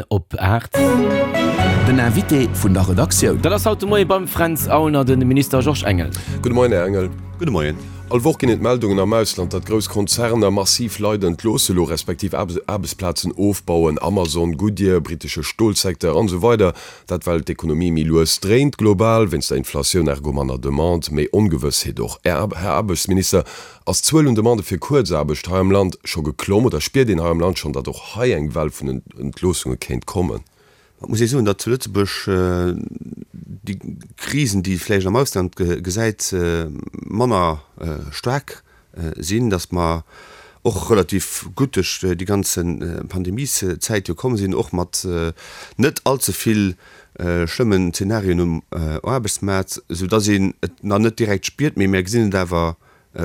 Op 8. Den Invité vun der Redaktioun. Dat ass haut de Moie beim Fränz Aulner de Minister Georges Engel. Gudde Moien, Här Engel. Gudde Moien. All Woch ginn et Meldungen am Ausland, datt grouss Konzerner massiv Leit entloosse lo, respektiv Aarbechtsplazen ofbauen, Amazon, Goodyear, brittesche Stolsecteur an esou weider. Dat well d'Ekonomie méi lues dréint global, wéinst der Inflatioun, ergo manner Demande, méi Ongewëssheet och. Här Aarbechtsminister, Ass d'Zuel un Demandë fir Kuerzaarbecht hei am Land scho geklomm oder spiert een hei am Land schonn, datt och hei eng Well vun Entloossunge kéint kommen? Et muss ee soen, datt zu Lëtzebuerg déi Krisen, déi ee vläicht am Ausland gesäit, manner staark sinn, datt mer och relativ gutt duerch déi ganze Pandemieszäit jo komm sinn, och mat net allze vill schlëmmen Zenarien um Aarbechtsmaart, soudatt een et nach net direkt spiert, mee mir gesinn et awer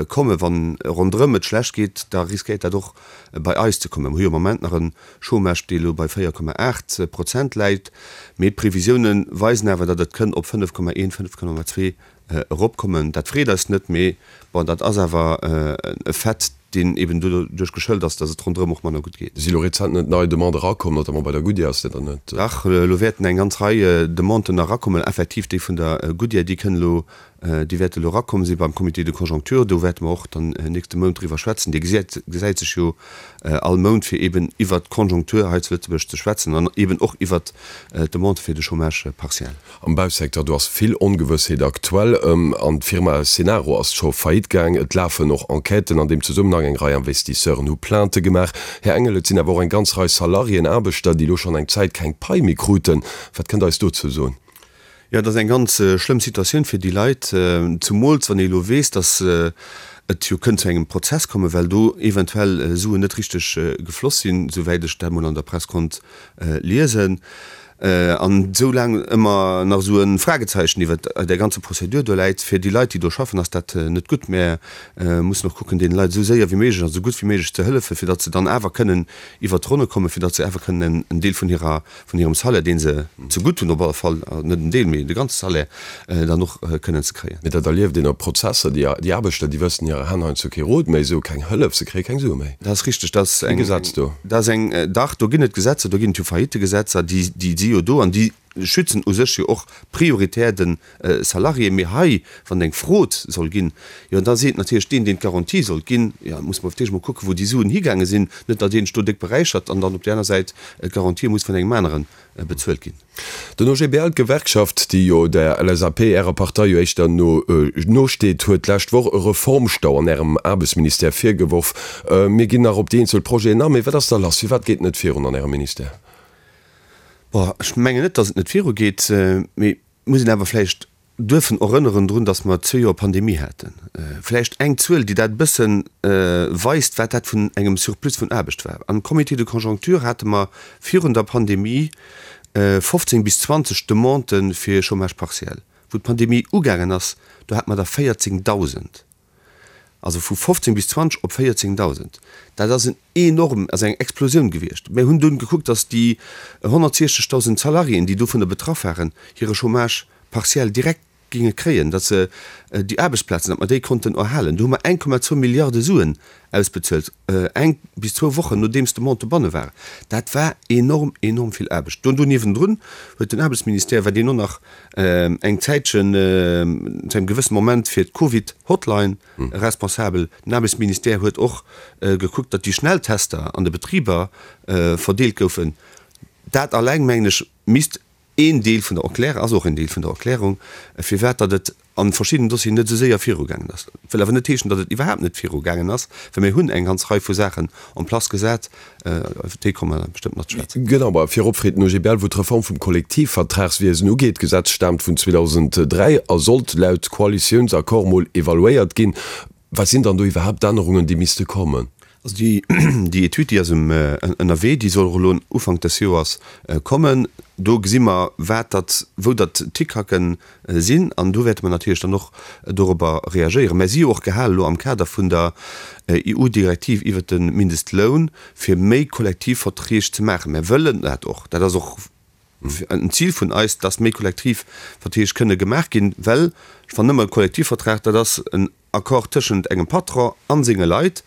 Kommen. Wann ronderëm et schlecht geet, da riskéiert dat och bei eis ze kommen. Mir hu jo am Moment nach e Chômage, dee elo bei 4,8 Prozent läit, mee d'Previsioune weisen awer, datt et kënn op 5,1, 5,2 eropkommen. Dat freet eis net, mee bon, dat ass awer e Fait, deen eben doduerch geschëlt ass, datt et ronderëm och manner gutt geet. Si elo rezent net nei Demandë erakomm, notamment bei der Goodyear, ass dat dann net? Dach, elo wäerten eng ganz Rei Demanden nach erakommen. Effektiv, déi vun der Goodyear, déi kënn elo Déi wäerte elo erakomm si beim Comité de conjoncture. Do wäerte mer och dann nächste Mount driwwer schwätzen. Dee gesäit sech jo all Mount, fir eeben iwwert d'Conjoncture hei zu Lëtzebuerg ze schwätzen an eeben och iwwert d'Demande fir de Chômage partiel. Am Bausecteur, do ass vill Ongewëssheet aktuell. An d'Firma Cenaro ass scho faillite gaang. Et lafen och Enquêten an deem Zesummenhang. Eng Rei Investisseuren hu Plainte gemaach. Här Engel, et sinn awer och eng ganz Rei Salariéen, Aarbechter, déi elo schonn eng Zäit keng Pai méi kruten. Wat kënnt Der eis dozou soen? Jo, et ass eng ganz schlëmm Situatioun fir déi Leit, zumools wann ee elo weess, datt et jo kënnt zu engem Prozess kommen, well do eventuell Suen net richteg gefloss sinn, souwäit ech dat mol an der Press konnt liesen. An esou laang ëmmer nach esou e Fragezeichen iwwert där ganzer Prozedur do läit, fir déi Leit, déi do schaffen, ass dat net gutt. Mär mussen och kucken, deene Leit esou séier wéi méiglech an esou gutt wéi méiglech ze hëllefen, fir datt se dann awer kënnen iwwert d'Ronne kommen, fir datt se awer kënnen en Deel vun hirer vun hirem Salaire, dee se zegutt hunn, op alle Fall net en Deel, mee de ganze Salaire, dann och kënnen ze kréien. Mee dat erlieft een op Prozesser, déi déi Aarbechter, déi wëssen hirer Hänn heiansdo kee Rot méi, se hu keng Hëllef, se kréie keng Sue méi. Dat ass richteg, dat ass eng, Gesetz do. Dat ass eng, dach, do ginn et Gesetzer, do ginn et jo Faillittegesetzer, déi, déi si jo do an déi schützen u sech jo och prioritär de Salarié. Mee hei, wann eng Frod soll ginn, jo da seet natierlech deen, deen d'Garantie sollt ginn, jo da muss mer op d'éischt mol kucken, wou déi Suen higaange sinn, net datt een sech do déck beräichert an dann op där aner Säit d'Garantië muss vun engem anere bezuelt ginn. Den OGBL, d'Gewerkschaft, déi jo der LSAP, Ärer Partei, jo éischter no nosteet, huet d'lescht Woch e Reformstau an Ärem Aarbechtsministère virgeworf. Mir ginn nach op déi eenzel Projeten an, mee wat ass da lass? Firwat geet et net virun an Ärem Ministère? Bon, ech mengen net, datt et net virugeet, mee et muss een awer vläicht duerfen erënneren drun, datt mer zwee Joer Pandemie haten. Vläicht eng Zuel, déi dat e bësse weist, wat dat vun engem Surplus vun Aarbecht war. Am Comité de conjoncture hate mer virun der Pandemie 15 bis 20 Demandë fir Chômage partiel. Wou d'Pandemie ugaangen ass, do hate mer der 14.000. Also vu 15 bis 20 op 14.000. Dat ass en enorm, ass eng Explosioun gewiescht. Mir hunn dunn gekuckt, datt déi 160.000 Salariéen, déi dovunner betraff waren, hire Chômage partiel direkt géinge kréien, datt se déi Aarbechtsplazen, datt mer déi konnten erhalen. Do hu mer 1,2 Milliarde Suen ausbezuelt, eng bis zwou Wochen nodeems d'Demande dobanne war. Dat war enorm, enorm vill Aarbecht. Do niewendrun huet den Aarbechtsministère, wat een och nach eng Zäitchen, zu engem gewëssene Moment fir d'Covid-Hotline responsabel. Den Aarbechtsministère huet och gekuckt, datt déi Schnelltester an de Betriber verdeelt goufen. Dat alleng, mengen ech, misst een Deel vun der Erklärung, ass och een Deel vun der Erklärung, firwat datt et a verschiddenen Dossieren net esou séier virugaangen ass. Wëll awer net heeschen, datt et iwwerhaapt net virugaangen ass, well mir hunn eng ganz Rei vu Saachen en place gesat, iwwer déi komme mer bestëmmt nach ze schwätzen. Genau, ma virop freet den OGBL, wou d'Reform vum Kollektivvertragswiesen ugeet. D'Gesetz staamt vun 2003 a sollt laut Koalitiounsaccord mol evaluéiert ginn. Wat sinn dann do iwwerhaapt d'Ännerungen, déi misste kommen? Also déi, déi Etüd, déi ass ënnerwee, déi soll och elo Ufank des Joers kommen. Do gesi mer, wat datt, wou datt d'Hickhacken sinn an do wäerte mer natierlech dann och dorobber reagéieren. Mer si jo och gehale elo am Kader vun der EU-Direktiv iwwert de Mindestloun, fir méi Kollektivverträg ze maachen. Mer wëllen dat och. Dat ass och en Zil vun eis, dass méi Kollektivverträg kënne gemaach ginn, well ech fannen ëmmer, e Kollektivvertrag, dat ass en Accord tëschent engem Patron a senge Leit.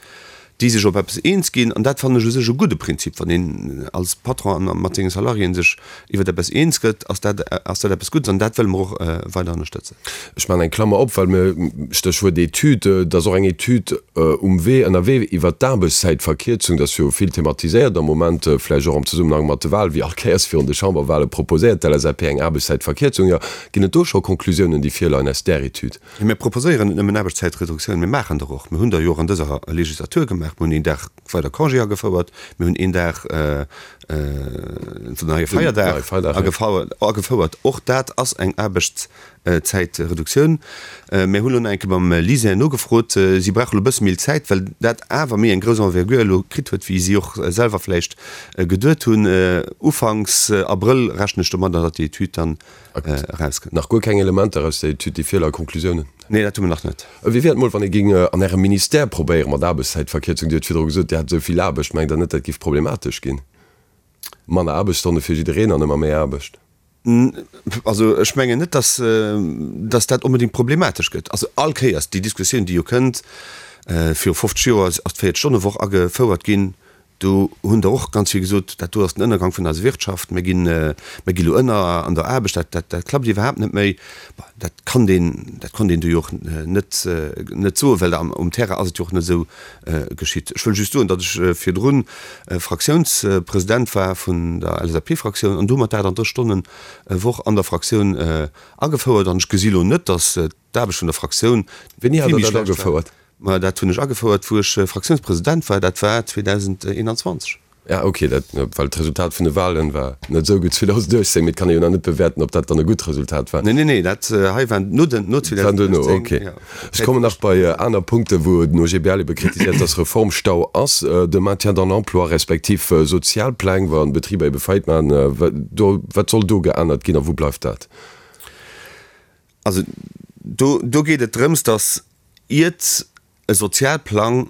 déi sech op eppes eens ginn. An dat fannen ech u sech e gudde Prinzip. Wann een als Patron mat senge Salariéen sech iwwer eppes eens gëtt, ass dat, ass dat eppes Guddes an dat wëlle mer och weider ënnerstëtzen. Ech maachen eng Klammer op, well mir, Stéchwuert Etüd, et ass och eng Etüd um Wee, ënnerwee iwwert d'Aarbechtszäitverkierzung. Dat ass jo vill thematiséiert am Moment, vläicht och am Zesummenhang mat de Wahlen, wéi all Kéiers virun de Chamberwahle proposéiert d'LSAP eng Aarbechtszäitverkierzung. Jo, ginn et do scho Konklusiounen, déi virleien aus där Etüd? Jo, mir proposéieren net nëmmen Aarbechtszäitreduktioun, mir maachen der och. Mir hunn der jo och an dëser Legislatur gemaach. Mir hunn een Dag weider Congé agefouert, mir hunn een Dag den neie Feierdag agefouert. Och dat ass eng Aarbechtszäitreduktioun. Mir hunn elo nach eng Kéier beim LISER nogefrot. Si brauche elo e bësse méi Zäit, well dat awer méi eng grouss Envergure elo kritt huet, wéi si och selwer vläicht geduet hunn. Ufanks Abrëll rechnen ech domadder, datt déi Etüd dann erauskënnt. Nach guer keng Elementer aus der Etüd, déi virleie Konklusiounen? Nee, dat hu mer nach net. Wéi wier et mol, wann ee géing an Ärem Ministère probéiere mat Aarbechtszäitverkierzung? Dir hutt virdru gesot, Dir hätt esou vill Aarbecht. Mengt Der net, dat géif problematesch ginn? Manner Aarbechtsstonne fir jiddereen an ëmmer méi Aarbecht? Also ech mengen net, datt datt dat onbedéngt problematesch gëtt. Also all Kéiers déi Diskussioun, déi jo kënnt, viru 50 Joer ass d'Véiertstonnewoch agefouert ginn, Do hunn der och ganz vill gesot, dat do ass den Ënnergang vun eiser Wirtschaft, mir ginn, mir gi lo ënner an der Aarbecht, dat, dat, dat klappt iwwerhaapt net méi. Bon, dat kann een, dat konnt een do jo och net, net soen, well am, um Terrain ass et jo och net esou geschitt. Ech wëll just soen, datt ech virdrun Fraktiounspresident war vun der LSAP-Fraktioun an do hu mer d'38 Stonnen Woch an der Fraktioun agefouert an ech gesi lo net, datt d'Aarbecht vun der Fraktioun Wéini hat Der dat agefouert? Ma dat hunn ech agefouert, wou ech Fraktiounspresident war, dat war 2021. Ja, okay, dat, well d'Resultat vun de Wahlen war net esou gutt 2018, mee et kann ee jo nach net bewäerten, ob dat dann e gutt Resultat war. Nee, nee, nee, dat hei war no den, no 2018. War duerno, okay. Ja. Ech kommen nach bei aner Punkten, wou den OGBL ebe kritiséiert, dass Reformstau ass, de Maintien dans l'emploi respektiv Sozialpläng, wa Betriber ebe Faillite maachen, do, wat soll do geännert ginn a wou bleift dat? Also do, do geet et drëms, dass Iert e Sozialplang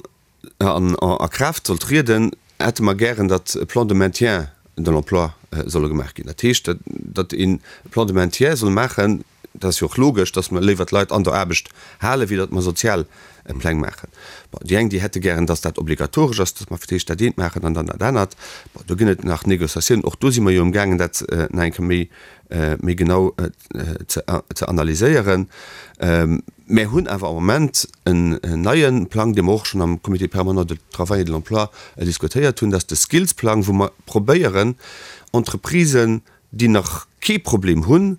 a Kraaft soll trieden, hätte mer gären, datt e Plan de maintien de l'emploi solle gemaach ginn. Dat heescht, datt een e Plan de maintien soll maachen, dat ass jo och logesch, datt mer léiwer d'Leit an der Aarbecht halen, wéi datt mer Sozialpläng maachen. Bon, déi eng, déi hätte gären, datt dat obligatoresch ass, datt mer fir d'éischt dat eent maachen an dann dat anert. Bon, do ginn et nach Négociatiounen. Och do si mer jo amgaangen, dat nach eng Kéier méi méi genau ze analyséieren. Mär hunn awer am Moment en neie Plang, dee mer och schonn am Comité permanent du travail et de l'emploi diskutéiert hunn, dat ass de Skills-Plang, wou mer probéieren, Entreprisen, déi nach kee Problem hunn,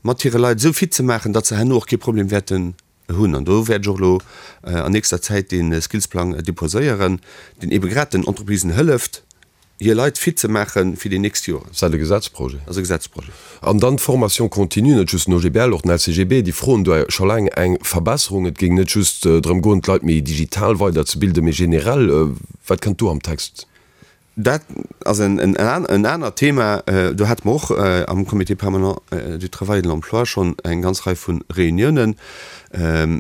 mat hire Leit esou fit ze maachen, datt se herno och kee Problem wäerten hunn. An do wäert ech och elo an nächster Zäit dee Skillsplang deposéieren, deen eebe grad den Entreprisen hëlleft, hir Leit fit ze maache fir déi nächst Joren. Ass dat e Gesetzprojet? Dat ass e Gesetzprojet. An dann d'Formation continue, net just den OGBL, och den LCGB, déi froen do scho laang eng Verbesserung. Et géing net just drëm goen, d'Leit méi digital weiderzebilden, mee generell. Wat kënnt do am Text? Dat ass en anert Thema. Do hate mer och am Comité permanent du travail et de l'emploi schonn eng ganz Rei vu Reuniounen.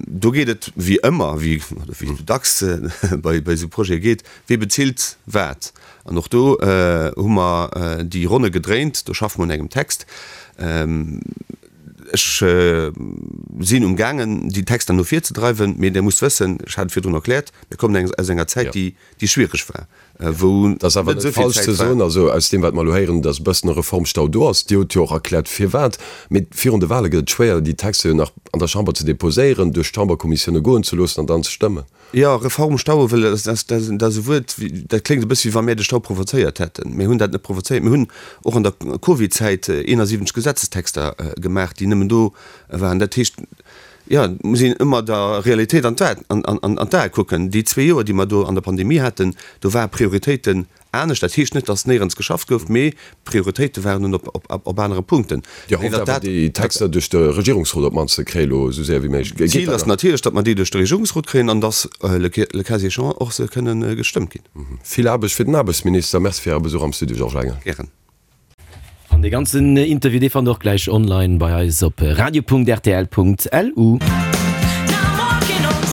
Do geet et wéi ëmmer, wéi et dacks bei esou Projete geet, Wie bezilt wat? An och do hu mer déi Ronne gedréint. Do schaffe mer un engem Text. Ech sinn um gaangen, déi Texter no vir ze dreiwen. Mee Der musst wëssen, ech hat et virdrun erkläert, mir kommen aus enger Zäit, déi schwiereg war, wou Et ass awer net falsch ze soen, also aus deem wat mer elo héieren, datt e bëssen e Reformstau do ass. Dir hutt jo och erkläert firwat. Mee virun de Wahle gëtt et schwéier, déi Texter jo nach an der Chamber ze deposéieren, duerch d'Chamberkommissioune goen ze loossen an dann ze stëmmen. Jo, Reformstau, wëll dat ass e Wuert, dat kléngt e bësse wéi wa mir de Stau provozéiert hätten. Mir hunn dat net provozéiert. Mir hunn och an der Covid-Zäit 71 Gesetzestexter gemaach, déi nëmmen do waren. Dat heescht, jo, et muss een ëmmer der Realitéit an d'Ae kucken. Déi zwee Joer, déi mer do an der Pandemie haten, do ware Prioritéiten Anescht, dat heescht net, datt néierens geschafft gouf, mee d'Prioritéite waren nun op anere Punkten. Dir hofft awer, déi Texter duerch de Regierungsrot op d'mannst ze kréien, elo esou séier wéi méiglech. Geet dat? D'Zil ass natierlech, datt mer déi duerch de Regierungsrot kréien an datt, le cas échéant, och se kënne gestëmmt ginn. Vill Aarbecht fir den Aarbechtsminister. Merci fir Äre Besuch am Studio, Georges Engel. Gären. An dee ganzen Interview, dee fannt der och gläich online bei eis op radio.rtl.lu.